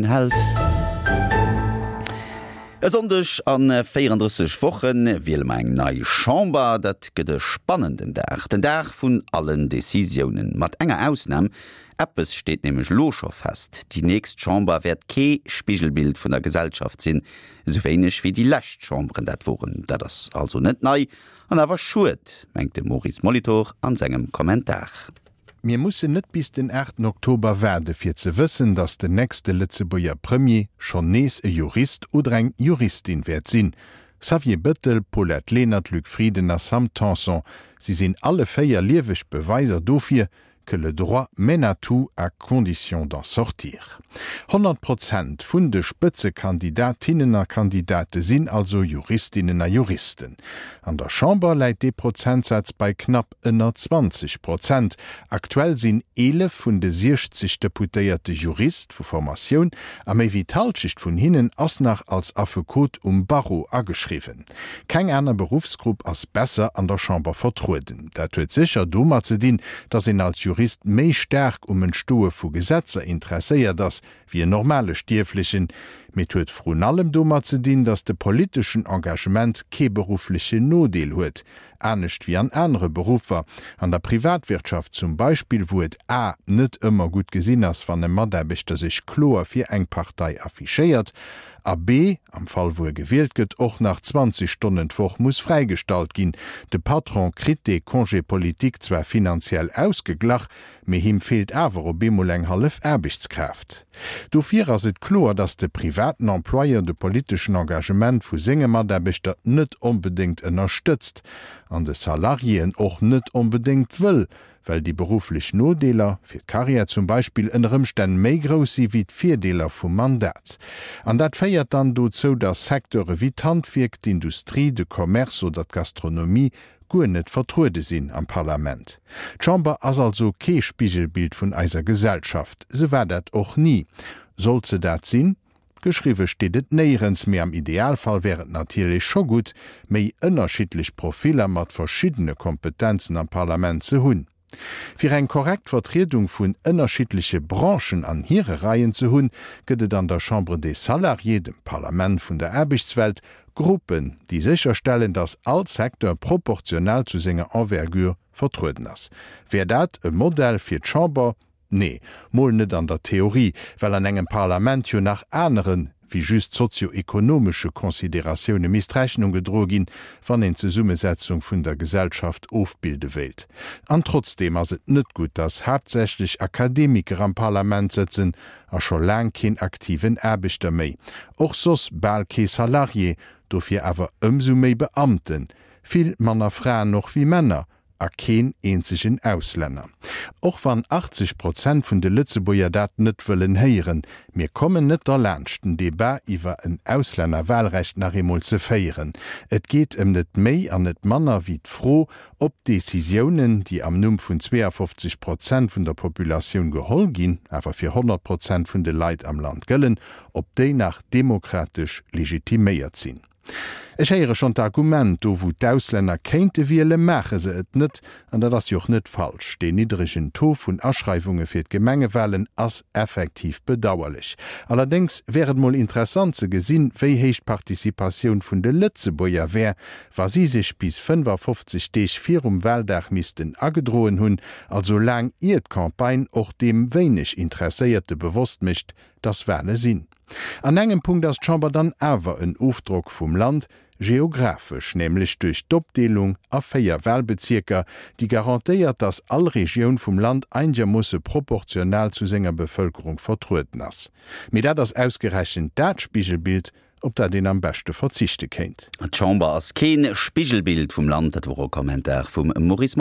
Held. E Sonndeg a 34 Woche wiele mer eng nei Chamber. Dat gëtt e spannenden Dag, den Dag vun allen Decisiounen. Mat enger Ausnam, Eppes steet nämlech elo scho fest, Déi nächst Chamber wäert kee Spigelbild vun der Gesellschaft sinn, esou wéineg wéi déi lescht Chamberen dat woren. Dat ass also net nei an awer schued, mengt de Maurice Molitor an sengem Kommentar. Mir mussen net bis den aachten Oktober waarde fir ze wëssen, datt den nächste Lëtzebuerger Premier schonn nees e Jurist oder eng Juristin wäert sinn. Xavier Bëttel, Paulette Lenert, Luc Frieden a Sam Tanson, si sinn alle 4 lieweg Beweiser dofir, que le droit mène à tout à condition d'en sortir. 100 Prozent vun de Spëtzekandidatinnen a Kandidate sinn also Juristinnen a Juristen. An der Chamber läit dee Prozentsaz bei knapp ënner 20 Prozent. Aktuell sinn 11 vun de 60 Deputéierte Jurist vu Formatioun a méi wéi d'Halschecht vun hinnen ass nach als Affekot um Barreau ageschriwwen. Keng aner Beruffsgrupp ass besser an der Chamber vertrueden. Dat huet sécher domat ze dinn, datt een als Jurist méi staark um Entstoe vu Gesetzer interesséiert ass, wéi en normale Stierflechen. Mee et huet vrun allem domat ze dinn, datt de politeschen Engagement kee berufflechen Nodeel huet, anescht wéi an anere Beruffer, an der Privatwirtschaft zum Beispill, wou et a net ëmmer gutt gesinn ass, wann e Mataarbechter sech kloer fir eng Partei affichéiert, a b am Fall wou e gewielt gëtt, och nach 20 Stonnen d'Woch muss fräigestallt ginn. De Patron kritt dee Congé politique zwar finanziell ausgeglach, mee him feelt awer op eemol eng hallef Aarbechtskraaft. Dofir ass et kloer, datt de privaten Employeur de politeschen Engagement vu senge Mataarbechter net onbedéngt ënnerstëtzt an de Salariéen och net onbedéngt wëll, well déi berufflech Nodeeler, fir d'Karriär zum Beispill, ënner Ëmstänn méi grouss si wéi d'Virdeeler vum Mandat. An dat féiert dann dozou, datt Secteure wéi d'Handwierk, d'Industrie, de Commerce oder d'Gastronomie guer net vertruede sinn am Parlament. D'Chamber ass also kee Spigelbild vun eiser Gesellschaft. Se war dat och ni. Sollt se dat sinn? Geschriwwe steet et néierens, mee am Idealfall wär et natierlech scho gutt, méi ënnerschiddlech Profiller mat verschiddene Kompetenzen am Parlament ze hunn. Fir eng korrekt Vertriedung vun ënnerschiddleche Branchen an hire Reien ze hunn, gëtt et an der Chambre des Salariés, dem Parlament vun der Aarbechtswelt, Gruppen, déi sécherstellen, datt all Secteur proportional zu senger Envergure vertrueden ass. Wär dat e Modell fir d'Chamber? Nee, mol net an der Theorie, well an engem Parlament jo nach anere wéi just sozio-ekonomesche Consideratioune misst Rechnung gedroe ginn, wann een d'Zesummesetzung vun der Gesellschaft ofbilde wéilt. An trotzdeem ass et net gutt, datt haaptsächlech Akademiker am Parlament sëtzen a scho laang keen aktiven Aarbechter méi, och soss bal kee Salarié, dofir awer ëmsou méi Beamten, vill manner Fraen och wéi Männer, a keen eenzegen Auslänner. Och wann 80 Prozent vun de Lëtzebuerger dat net wëllen héieren, mir kommen net derlaanscht den Debat iwwer en Auslännerwahlrecht nach eemol ze féieren. Et geet ëm net méi an net manner wéi d'Fro, ob d'Décisiounen, déi am Numm vun 52 Prozent vun der Populatioun geholl ginn, awer fir 100 Prozent vun de Leit am Land gëllen, ob déi nach demokratesch legitiméiert sinn. Ech héiere schonn d'Argument, do wou d'Auslänner kéinte wiele maache se et net. An dat ass jo och net falsch. Deen niddregen Taux vun Aschreiwunge fir d'Gemengewalen ass effektiv bedauerlech. Allerdéngs wär et mol interessant ze gesinn, wéi héich d'Participatioun vun de Lëtzebuerger wär, wa si sech bis 55 Deeg virum Waldag missten agedroen hunn, also laang ier d'Campagne och deem wéineg Interesséierte bewosst mécht, dass Wale sinn. An engem Punkt ass d'Chamber dann awer en Ofdrock vum Land, geographesch, nämlech duerch d'Opdeelung a 4 Wahlbezierker, déi garantéiert, dass all Regioun vum Land einegermoosse proportional zu senger Bevëlkerung vertrueden ass. Mee dat ass ausgerechent dat Spigelbild, op dat een am beschte verzichte kéint. D'Chamber ass kee Spigelbild vum Land, dat wor e Kommentar vum Maurice.